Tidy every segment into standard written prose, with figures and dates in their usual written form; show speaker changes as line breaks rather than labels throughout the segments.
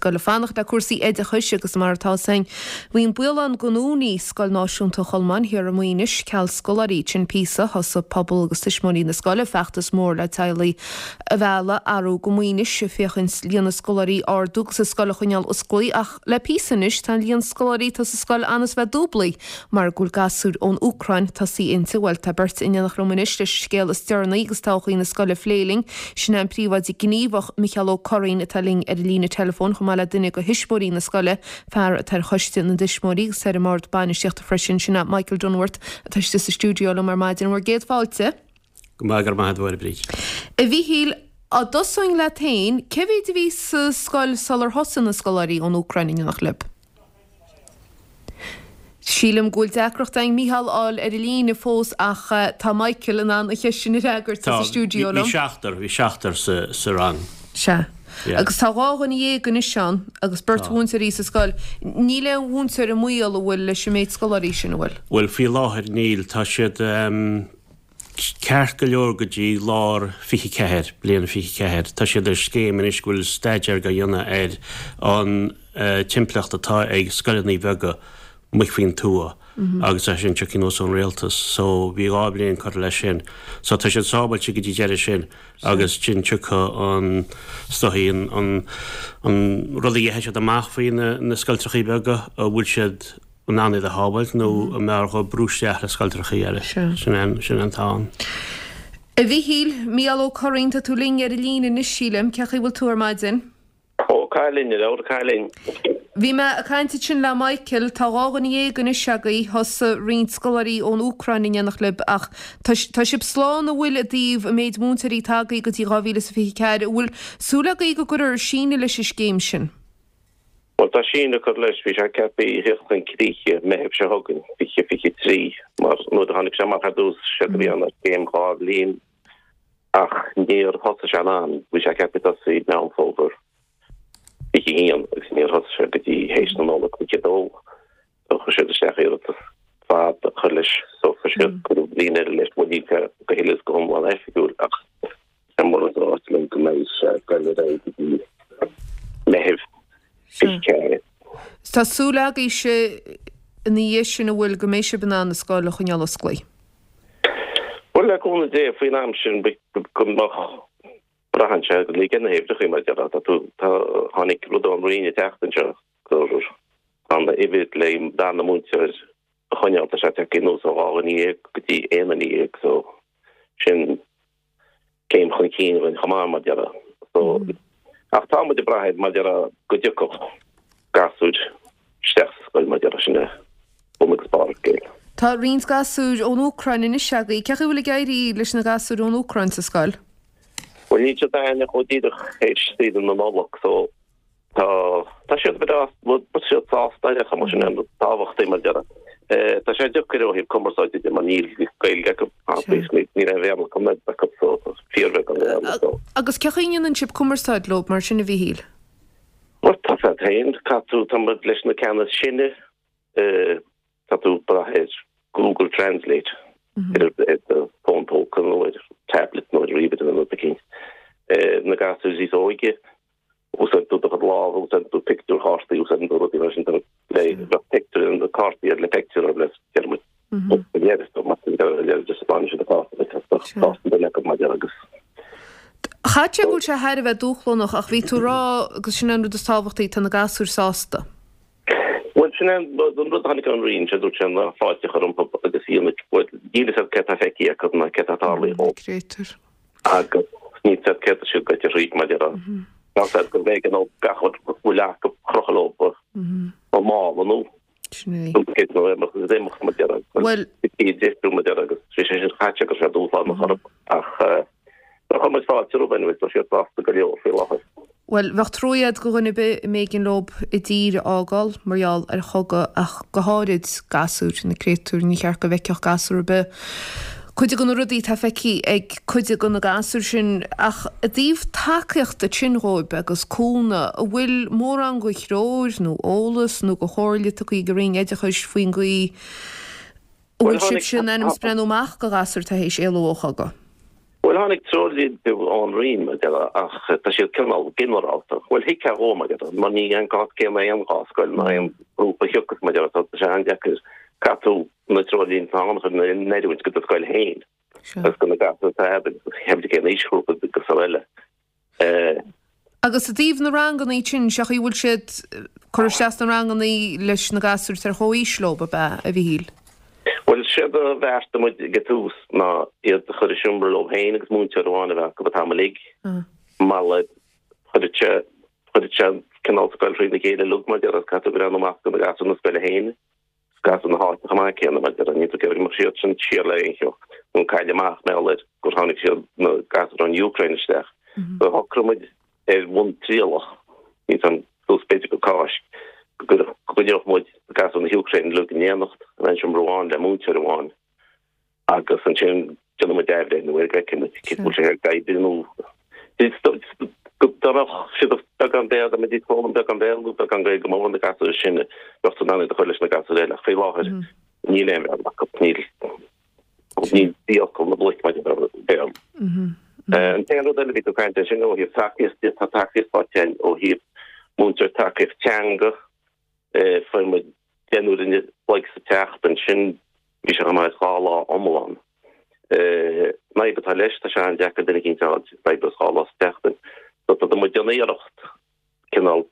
ag dul ag fanacht le cúrsaí oideachais agus mar atá 'fhios a'inn, bhí an baol ann go ndúnfaí Scoil Náisiúnta Cholmáin thiar i Maínis ceal scoláirí. Ansin píosa, thosaigh pobal agus tuismitheoirí na scoile feachtas mór le teaghlaigh a mhealladh arú go Maínis, féachaint líon na scoláirí a ardú agus an scoil a choinneáil osclaí ach le píosa anois tá an líon scoláirí atá sa scoil ann is bheith dúblaí mar go bhfuil gasúir ón Úcráin tosaí inti. Bhuel tá beirt in éineacht liom anois leis an scéal is deireanaí agus todhchaí na scoile a phlé linn. Sin é an príomhoide gníomhach Micheál Ó Curraoin atá linn ar an líne teileafóin chomh maith le duine de thuismitheoirí na scoile, fear atá ar choiste na dtuismitheoirí agus ar an mbord bainistíochta freisin, sin é Michael Dunworth atá istigh sa stiúideo liom ar maidin. Bhur gcéad fáilte.
Go maith, go raibh maith agat a Bhríd.
A Mhíchíl, dá dtosóinn leat féin, cé mhéid a bhí sa scoil sular thosaigh na scoláirí ón Úcráin in éineacht libh? Sílim go bhfuil deacracht againn Mícheál a fháil ar an líne fós ach tá Michael in ann an cheist sin a fhreagairt sa stiúideo liom.
Bhí seachtar, bhí seachtar sa rang.
Sea. Agus tá 12 dhuine anois ann agus beirt mhúinteoirí sa scoil. Níl aon mhúinteoir i mbaol an bhfuil leis an méid scoláirí sin, an bhfuil?
Bhuel, faoi láthair níl. Tá siad. Ceart go leor go dtí lár 24, bliain 24. Tá siad ar scéim anois go bhfuil staidéar á dhéanamh ar an timpeallacht atá ag scoileanna beaga amuigh faoin tuath agus é sin tiocfaidh anuas ón rialtas. So bhí 2 bhliain curtha leis sin. So tá siad sábhailte go dtí deireadh sin agus sin tiocfaidh an, is dóichí an, an rud a gheibheadh siad amach faoi na scoiltreachaí beaga, an bhfuil siad, in ann iad a shábháilt nó an mb'fhearr dhóibh brú isteach le scoiltreachaí eile. Sin é sin an t-am.
A Mhíchíl, Mícheál Ó Curraoin, tá tú linn ar an líne anois, sílim. Cén chaoi a bhfuil tú ar maidin?
Ó, cailín, a leabhar cailín.
Bhí mé ag caint ansin le Michael, tá 12 dhuine anois agaibh, thosaigh roinnt scoláirí ón Úcráin in éineacht libh ach tá tá sibh slán an bhfuil i dtaobh an méid múinteoirí atá agaibh go dtí 2024, an bhfuil súil agaibh go gcuirfear síneadh leis an scéim sin?
Bhuel, tá síneadh curtha leis, bhí sé ceaptha a theacht chun críche Meitheamh seo chugainn, 2023, mar nuair a tháinig sé amach ar dtús, séard a bhí ann ná scéim 2 bhliain, ach níor thosaigh sé in am, bhí sé ceaptha tosaí Meán Fómhair 21 agus níor thosaigh sé go dtí théis na Nollag 22. So chuir siad isteach iarratas fad a chur leis, so chuir siad cuireadh bliain eile leis, bhuel níl sé go huile is go hiomlán oifigiúil ach tá mar atá ráite liom go mbeidh sé ag dul ar aghaidh go dtí Meitheamh 24.
Tá súil agaibhse ina dhiaidh sin an bhfuil go mbeidh sibh in ann an scoil a choinneáil osclaí?
Bhuel le cúnamh Dé faoin am sin go mbeadh braitheann sé go léir na huimhreacha mar a déarfá tá tú tá tháinig rud ón Roinn an tseachtain seo gur tá an uimhir le darna múinteoir a choinneáil tá sé tagtha anuas ó 12 dhuine go dtí 11 dhuine so sin céim chun cinn dhúinn chomh maith mar a déarfá so ach tá muid ag brath air mar a déarfá go dtiocfadh gasúir isteach sa scoil mar a déarfá sin é bun agus barr an scéil.
Tá roinnt gasúir ón Úcráin anois agaibh. Cén chaoi a bhfuil ag éirí leis na gasúir ón Úcráin sa scoil?
Bhuel níl siad againne ach ó díreach théis saoire na Nollag so Tá, tá siad breá, tá siad sásta ar chuma, sin an tábhachtaí mar a déarfá. Tá sé deacair ó thaobh cumarsáide de mar níl Gaeilge acu, níl aon Bhéarla acu, acu so fíorbheagán Béarla so.
Agus cén chaoi a ndéanann sibh cumarsáid leo mar sin a Mhíchíl?
Bhuel tá sé féin, caithfidh tú, tá muid leis na ceanna is sine, tá tú ag brath ar Google Translate ar do fón póca nó ar tablet nó ar ríomhaire nó rud eicínt. Na gasúir níos óige, Úsáideann tú do chuid lámh, úsáideann tú pictiúrchártaí, úsáideann tú rudaí mar sin le bheadh pictiúr na cártaí ar le pictiúr ar le deir muid
Chaithfeadh sé go bhfuil sé thar a bheith dúshlánach ach bhí tú ag rá agus sin an rud is tábhachtaí tá na gasúir sásta.
Bhuel sin é an rud a tháinig ón Roinn, sé dúirt sé ná fáilte a chur rompu agus níl a fhios agat céard tá feicthe acu ná céard tá tarlaithe dhóibh.
Créatúir.
Agus níl a fhios agat céard tá siad goite thríd mar a déarfá. Tá a fhios agat gurbh éigean dóibh gach rud a bhfuil acu a chrochadh leo i mála nó
Sin é.
céard nó imeacht agus imeacht mar a déarfá.
Bhuel.
Bhí deifriú mar a déarfá agus bhí sé sin caite agus sé dúshlánach orthu ach chuir muid fáilte rompu anyway tá siad sásta go leor faoi láthair.
Bhuel, bheadh truaighe a'd go dhuine ar bith a mb'éigean leob a dtír a fhágáil mar gheall ar chogadh ach go háirid gasúir, na créatúir, ní cheart go bhfeicfeadh gasúr ar bith cuid de na rudaí atá feicthe ag cuid de na gasúir sin. Ach i dtaobh tacaíochta ansin dhóibh agus cúnamh, an bhfuil mórán de threoir nó eolas nó de chomhairle tugtha ag an Roinn Oideachais faoin gcaoi a bhfuil sibhse in ainm is breathnú amach go ghasúir atá théis éalú ó chogadh?
Bhuel, tháinig treoirlínte ón Roinn, mar a déarfá, ach tá siad cineál ginearálta. Bhuel, thuigfeá dhó, mar a déarfá, mar ní an cás céanna aon dhá scoil ná aon ghrúpa a thiocfas, mar a déarfá, tá sé an-deacair caithfidh tú na treoirlínte atá ann a chur in oiriúint do do scoil féin agus do na gasúir atá agat agus cén aoisghrúpa agus araile.
Agus i dtaobh na ranganna sin, sé chaoi a bhfuil siad curtha isteach sna ranganna leis na gasúir atá ar chomhaois leo, ab ea, a Mhichíl?
Bhuel, séard a bheartaigh muid ag an tús ná iad a chur i seomra leo féin agus múinteoir amháin a bheith acu an t-am uilig. Mar chuirfeadh sé, chuirfeadh sé cineál scoil thrína chéile uilig mar a déarfá, caithfidh tú breathnú amach do na gasúir na scoile féin. Gasúir na háite chomh maith céanna, mar a déarfá, níl tú ag iarraidh go mbeadh siad sin siar le aon cheo nó cailleadh amach mar gheall ar gur tháinig siad na gasúir ón Úcráin isteach. So shocraigh muid ar bhonn trialach, níl 's a'm suas b'fhéidir go Cáisc, go gcoinneodh muid gasúir na hÚcráine uilig in éineacht in aon seomra amháin le múinteoir amháin. agus ansin déanfaidh muid athbhreithniú air go bhfeicfidh muid cé bhfuil sé ag oibriú nó dá mbeadh siad beagán Béarla, dá mbeidís ag foghlaim beagán Béarla nó beagán Gaeilge go mór na gasúir sin bheadh tú in ann iad a chur leis na gasúir eile ach faoi láthair níl aon Bhéarla acu, níl níl fiacail na bloic maidir le Béarla. An t-aon rud eile a bhí tú ag caint air sin ó thaobh tacaíocht de, tá tacaíocht faighte againn ó thaobh múinteoir tacaíocht teanga, Fuair muid deichniúr an chloig sa tseachtain sin, bhí sé chomh maith is 2 lá iomlán. An fhadhb atá leis, tá sé an-deacair duine eicínt a fháil a oibreos 2 lá sa tseachtain. So tá muid ag déanamh iarracht cineál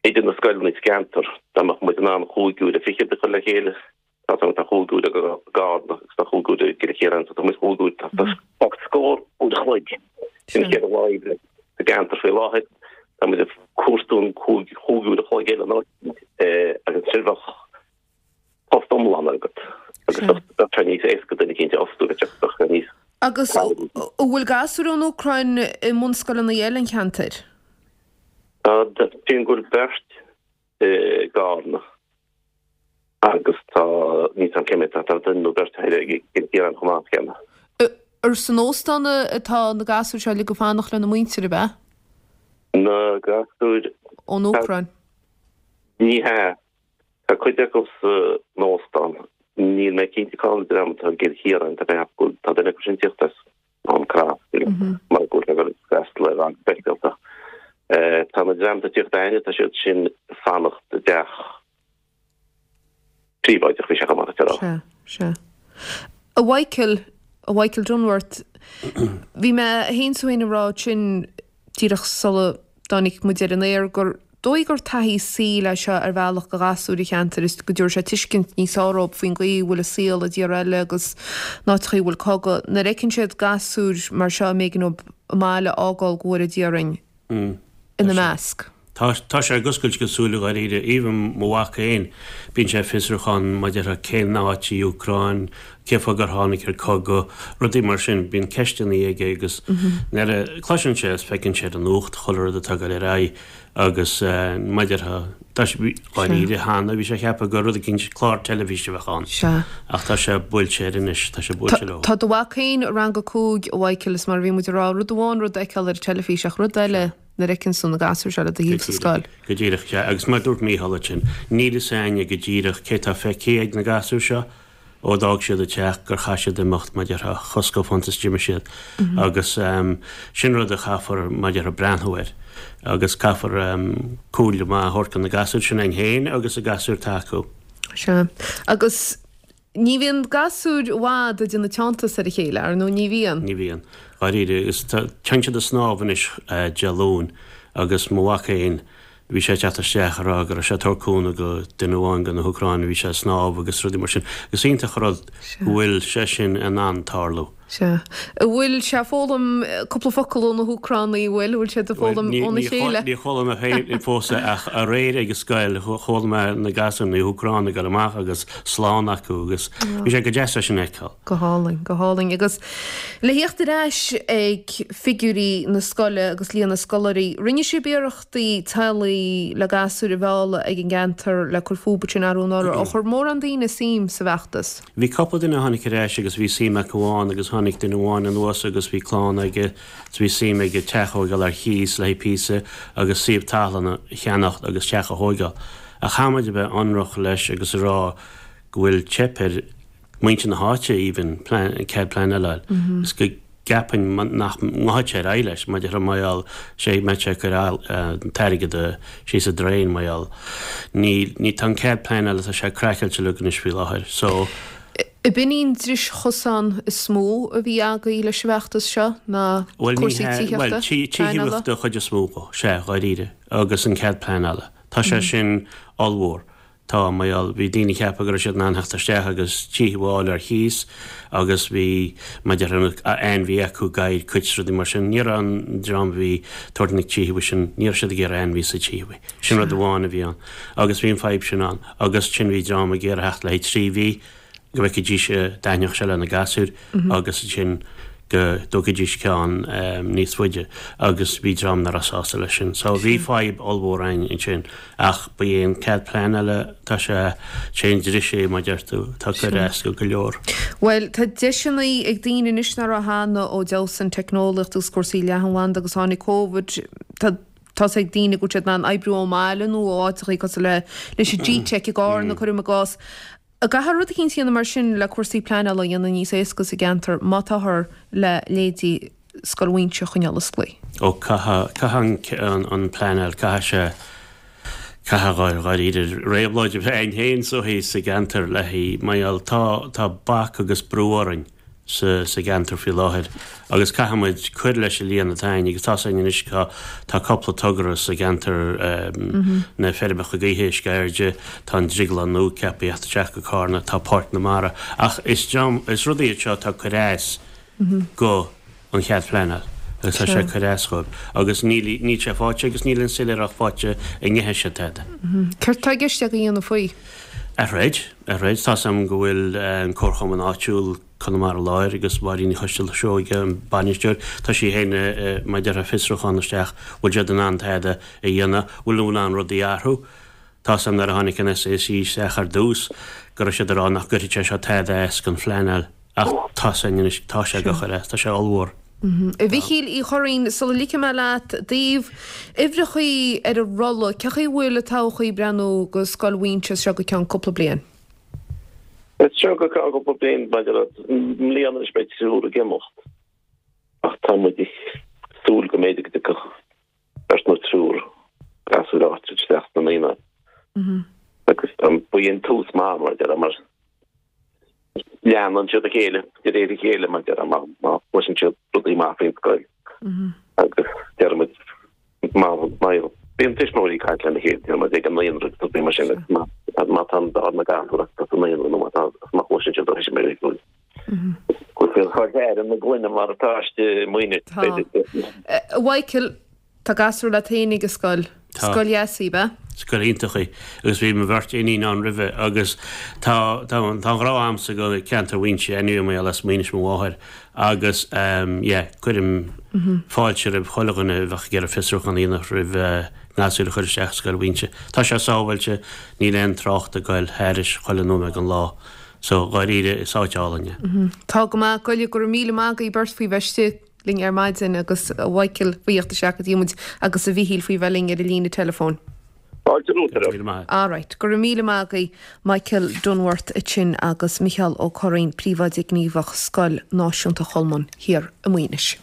idir na scoileanna sa gceantar, dá mbeadh muid in ann chúig uaire fichead a chur le chéile, Tá tá tá chúig uaire i gCarna agus tá chúig uaire i gCill Chiaráin so tá muid chúig uaire tá tá scór uair a chloig sin an chéad lá oibre sa gceantar faoi láthair. Tá muid ag cuartú an chúig chúig uair a chloig eile nó agus ansin bheadh post iomlán agat agus bheadh sé níos éasca duine eicínt a fhostú bheadh sé níos
Agus an bhfuil gasúir ón Úcráin i mbunscoileanna eile an cheantair?
Tá, sílim go bhfuil beirt i gCarna agus tá, níl 's a'm cé mhéad, tá duine nó beirt eile i gCill Chiaráin chomh maith céanna.
Ar san óstán atá na gasúir seo uilig ag fanacht lena muintir, ab ea?
Na gasúir.
Ón Úcráin.
Ní hea. Tá cuid acu san óstán. Níl mé cinnte cá bhfuil an dream atá i gCill Chiaráin, tá mé ag ceapadh go bhfuil, tá duine acu sin ag tíocht as. Mám Crois, mar go bhfuil sé ag dul ag freastal ar rang speisialta. Tá na dream atá ag tíocht againne, tá siad sin ag fanacht i dteach príobháideach, bhí sé chomh maith
le rá. Sea, sea. A Mhichael, a Mhichael Dunworth, bhí mé féin is tú féin ag rá ansin díreach sula dtáinig muid ar an aer gur dóigh gur taithí saoil é seo ar bhealach do ghasúir an cheantair is go dtabharfaidh sé tuiscint níos fearr dóibh faoin gcaoi a bhfuil an saol i dtíortha eile agus in áiteachaí a bhfuil cogadh. Nuair a fheiceann siad gasúir mar seo a mb'éigean dóibh a mbaile a fhágáil go bhfóire Dia orainn ina measc.
Tá, tá sé ag oscailt a gcuid súile dháiríre. Even mo mhac féin, bíonn sé ag fiosrúchán maidir le cén áit í Úcráin, cé fáth gur tháinig ar cogadh, rudaí mar sin. Bíonn ceisteanna aige agus nuair a cloiseann sé is feiceann sé ar an nuacht chuile rud atá ag dul ar aghaidh agus maidir le, tá sé, dháiríre cheana bhí sé ag ceapadh gur rud eicínt, clár teilifíse a bheadh ann.
Sea.
Ach tá sé buailte air anois, tá sé buailte leo.
Tá do mhac féin i rang a 5, a Mhichael, is mar a bhí muid ag rá, rud amháin rud a fheiceáil ar an teilifís ach rud eile, nuair a fheiceann tú na gasúir seo le do thaobh sa scoil.
Go díreach, sea. Agus mar a dúirt Mícheál ansin, níl fhios a'inne go díreach cé tá feicthe ag na gasúir seo ó d'fhág siad an teach gur chaith siad imeacht, mar a déarfá, chosc fanta is d'imigh siad. Agus sin rud a chaithfear, mar a déarfá, breathnú air. Agus caithfear comhairle maith a thabhairt do na gasúir sin againn féin agus na gasúir atá acu.
Sea. Agus Ní bhíonn gasúir i bhfad ag déanamh teanntais ar a chéile, ar ndóigh, ní bhíonn.
Ní bhíonn. Dháiríre, agus tá, téann siad ag snámh anois Dé Luain agus mo mhac féin, bhí sé ag teacht isteach ag rá go raibh sé ag tabhairt cúnamh go duine amháin de na hÚcránaigh, bhí sé ag snámh agus rudaí mar sin. Is iontach an rud go bhfuil sé sin in ann tarlú.
Sea. An bhfuil sé ag foghlaim cúpla focal ó na hÚcránaigh, an bhfuil? An bhfuil siad ag foghlaim óna chéile?
Níor chuala mé féin fós é ach aréir ag an scoil chuala mé na gasúir, na hÚcránaigh ag dul amach agus slán acu agus bhí sé go deas é sin a fheiceáil.
Go hálainn, go hálainn. Agus le theacht ar ais ag figiúirí na scoile agus líon na scoláirí, rinne sibh iarrachtaí teaghlaigh le gasúir a mhealladh ag an gceantar le cur fúthu ansin arú anuraidh. Ar chuir mórán daoine suim sa bhfeachtas?
Bhí cúpla duine a tháinig ar ais agus bhí suim acu ann agus tháinig duine amháin anuas agus bhí clann aige is bhí suim aige teach a thóigeáil ar chíos le haghaidh píosa agus suíomh talún a cheannacht agus teach a thóigeáil. Ach caithfidh muid a bheith ionrach leis agus a rá go bhfuil teip ar muintir na háite even cead pleanála a fháil. Is go. gceapainn nach ngabhfaidh sé ar aghaidh leis, mar déarfá mar gheall, sé mbeadh sé ag cur an t-airgead síos an drain mar gheall. Ní, ní, tá an cead pleanála, tá sé craiceáilte uilig anois faoi láthair. So.
Ab in í an dris chosán is mó a bhí agaibh leis an bhfeachtas seo, ná cúrsaí tithíochta,
Bhuel, tithíochta den chuid is mó dhó, sea, dháiríre, agus an cead pleanála. Tá sé sin ollmhór. Tá, mar gheall, bhí daoine ag ceapadh go raibh siad in ann theacht isteach agus tithe a fháil ar chíos agus bhí, mar déarfá, ainmhí acu, gadhair, cait is rudaí mar sin. Ní raibh an dream a bhí ag tabhairt na tithe sin, ní raibh siad ag iarraidh ainmhí sa tithe. Sin rud amháin a bhí ann. Agus bhí an fadhb sin ann. Agus ansin bhí dream ag iarraidh theacht le haghaidh 3 mhí go bhfeicfidís, dtaitneodh sé lena gasúir agus ansin go dtógfaidís ceann níos faide agus bhí dream nach raibh sásta leis sin. So bhí fadhb ollmhór ann ansin ach ba é an cead pleanála, tá sé, sé an dris é mar deir tú, tá ag cur as go go leor.
Bhuel, tá deiseanna ag daoine anois nach raibh cheana ó d'fheabhsaigh an teicneolaíocht agus cúrsaí leathanbhanda agus tháinig Covid, tá tá's ag daoine go bhfuil siad in ann oibriú ón mbaile nó ó áiteachaí cosúil le leis an G-Tech i gCarna, cuirim i gcás. An gcaithfear rud eicínt a dhéanamh mar sin le cúrsaí pleanála a dhéanamh níos éasca sa gceantar má táthar le leithéidí Scoil Mhuighinse a choinneáil osclaí?
Ó caithfidh, caithfidh an, an pleanáil, caithfidh sé, caithfidh dháiríre réabhlóid a bheith ann féin is dóichí sa gceantar le haghaidh, mar gheall, tá, tá bac agus brú orainn. sa gceantar faoi láthair agus caithfidh muid cur leis an líon atá againn agus tá's againn anois tá tá cúpla togra sa gceantar na feirmeacha gaoithe i Sceirde, tá an drioglann nua ceaptha a theacht isteach go Cárna, tá Páirc na Mara ach is dream is rudaí iad seo atá ag cur as go an chead pleanáil agus tá sé ag cur as dhóibh agus níl níl sé faighte agus níl an soiléireacht faighte an ngeithfidh siad tada.
Céard tá i gceist agaibh a dhéanamh faoi?
A throid, a throid. Tá's agam go bhfuil an Comharchumann áitiúil, Conamara Láir, agus Máirín Ní Choistealbha-Seoige, an bainisteoir, tá sí féin mar déarfá fiosrúchán isteach, bhfuil siad in ann tada a dhéanamh, bhfuil in ann rudaí a athrú. Tá's agam nuair a tháinig an SAC isteach ar dtús go raibh siad ag rá nach gcuirfidh sé seo tada as don phleanáil. Ach tá's againn anois, tá sé ag cur as, tá sé ollmhór.
A Mhichíl Uí Churraoin, sula ligfidh mé leat, i dtaobh uimhreachaí ar an rolla, cé chaoi a bhfuil an todhchaí ag breathnú go Scoil Mhuighinse as seo go ceann cúpla bliain?
As seo go ceann cúpla bliain, maidir le mbliana anois beidh triúr ag imeacht ach tá muid ag súil go mb'fhéidir go dtiocfadh beirt nó triúr gasúir áite isteach sna naíonáin. Agus ba é an tús maith mar déarfá mar leanann siad a chéile de réir a chéile mar déarfá má má chloiseann siad rudaí maith faoin scoil. Agus déarfaimid má má bíonn tuismitheoirí ag caint lena chéile déarfaimid ag an naíonra agus rudaí mar sin agus má má tá an dár na gasúir acu sa naíonra nó má tá má chloiseann siad ó thuismitheoirí go bhfuil siad chomh ar na gloine mar atá istigh i Maínis.
Tá. A Mhichael, tá gasúr leat féin ag an scoil.
Tá.
Scoil dheas í, ab ea?
Scoil iontach í. Agus bhí mo bheirt iníon ann roimhe agus tá, tá, tá an-ghrá a'msa go ceantar Mhuighinse anyway mar gheall as Maínis mo mháthair agus ehm yeah, cuirim fáilte roimh chuile dhuine a bheadh ag iarraidh fiosrúchán a dhéanamh roimh a ngasúir a chur isteach i Scoil Mhuighinse. Tá sé sábháilte, níl aon trácht ag goil thairis chuile nóiméad den lá. So, dháiríre, is áit álainn
é. Tá go maith go leor. Go raibh míle maith agaibh beirt faoi bheith istigh linn ar maidin agus a Mhichael faoi theacht isteach go dtí muid agus a Mhichíl faoi bheith linn ar an líne teileafóin.
Fáilte romhat
ar Míle maith.
Alright. Go raibh míle maith agaibh Michael Dunworth ansin agus Micheál Ó Curraoin, Príomhoide Gníomhach Scoil Náisiúnta Cholmáin thiar i Maínis.